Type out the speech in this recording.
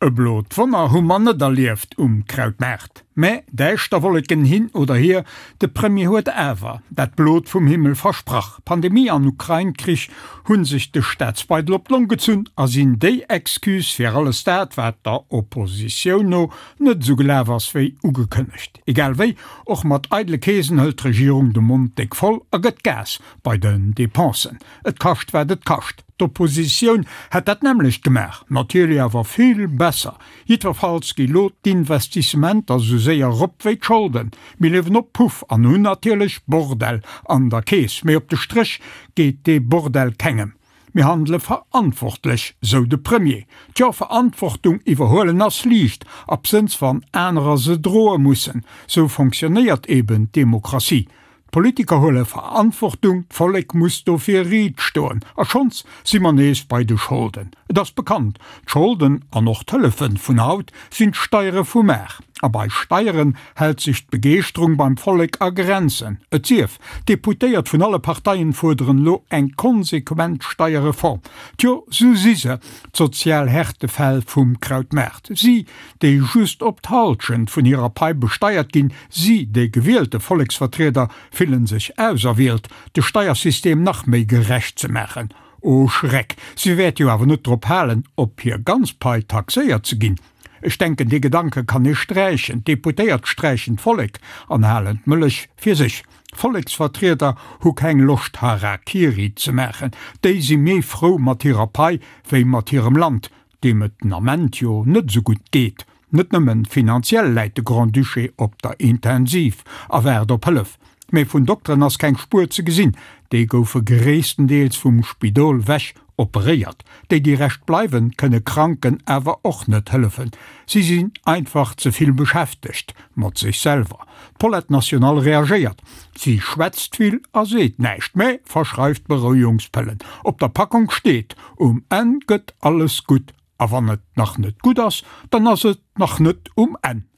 E blot Wonner hu mer net erlieft um Krautmaart. Mä däischter Wolleken hin oder hier, de Premier huet awer dat Blot vum Himmel versprach. Pandemie an Ukrain-Krich hu sech de Staatsbeidel op d'Long gezunn a sinn déi Excuse fir alles dat, wat der Oppositioun no net esou gelaf ass wéi ugekënnegt. Egal wéi, och mat eidele Keesen hëlt d'Regierung de Mond déck voll a gëtt Gas bei den Depensen. Et kascht wat et kascht. D'Oppositioun hätt dat nämmlecht gemaach, natierlech awer vill besser. Jiddwerfalls gi lo d'Investissementer sou séier erop wéi d'Scholden. Mir liewen op Puff an hunn natierlech Bordell an der Keess, mee op de Stréch geet dee Bordell kengem. Mir handele verantwortlech, sou de Premier. Tjo, Verantwortung iwwerhuelen ass liicht, absënns wann anerer se droe mussen. Sou fonctionnéiert eben d'Demokratie. D'Politiker huele Verantwortung, d'Vollek muss dofir riit stoen. A schonns si mer nees bei de Scholden. Et ass bekannt, d'Scholden an och d'Hëllefe vun haut sinn d'Steiere vu mar. A bei Steieren hält sech d'Begeeschterung beim Vollek a Grenzen. Et sief, d'Deputéiert vun alle Parteien fuerderen elo eng konsequent Steierreform. Tjo, sou si se, d'sozial Härtefäll vum Krautmaart. Si, déi just op d'Halschent vun hirer Pai besteiert ginn, Si, déi gewielte Volleksvertrieder, fillen sech auserwielt, de Steiersystem nach méi gerecht ze maachen. O Schreck, si wäerte jo awer net drop halen, op hir ganz Pai taxéiert ze ginn. Ech denken, dee Gedanke kann ee sträichen. D'Deputéiert sträichen d'Vollek an halen d'Mëllech fir sech. Volleksvertrieder hu keng Loscht Harakiri ze maachen. Déi si méi frou mat hirer Pai wéi mat hirem Land. deem et den Ament jo net esou gutt geet. Net nëmmen finanziell läit de Grand-Duché op der Intensiv a waart op Hëllef, mee vun Dokteren ass keng Spuer ze gesinn. Déi goufe gréisstendeels vum Spidol wech operéiert. Déi, déi Rescht bleiwen, kënne Kranken awer och net hëllefen. Si sinn einfach ze vill beschäftegt mat sech selwer. D'Paulette National reagéiert, Si schwätzt vill a seet näischt, mä verschreift Berouegungspëllen. Op der Packung steet, Um Enn gëtt alles gutt. A wann et nach net gutt ass, dann ass et nach net um Enn.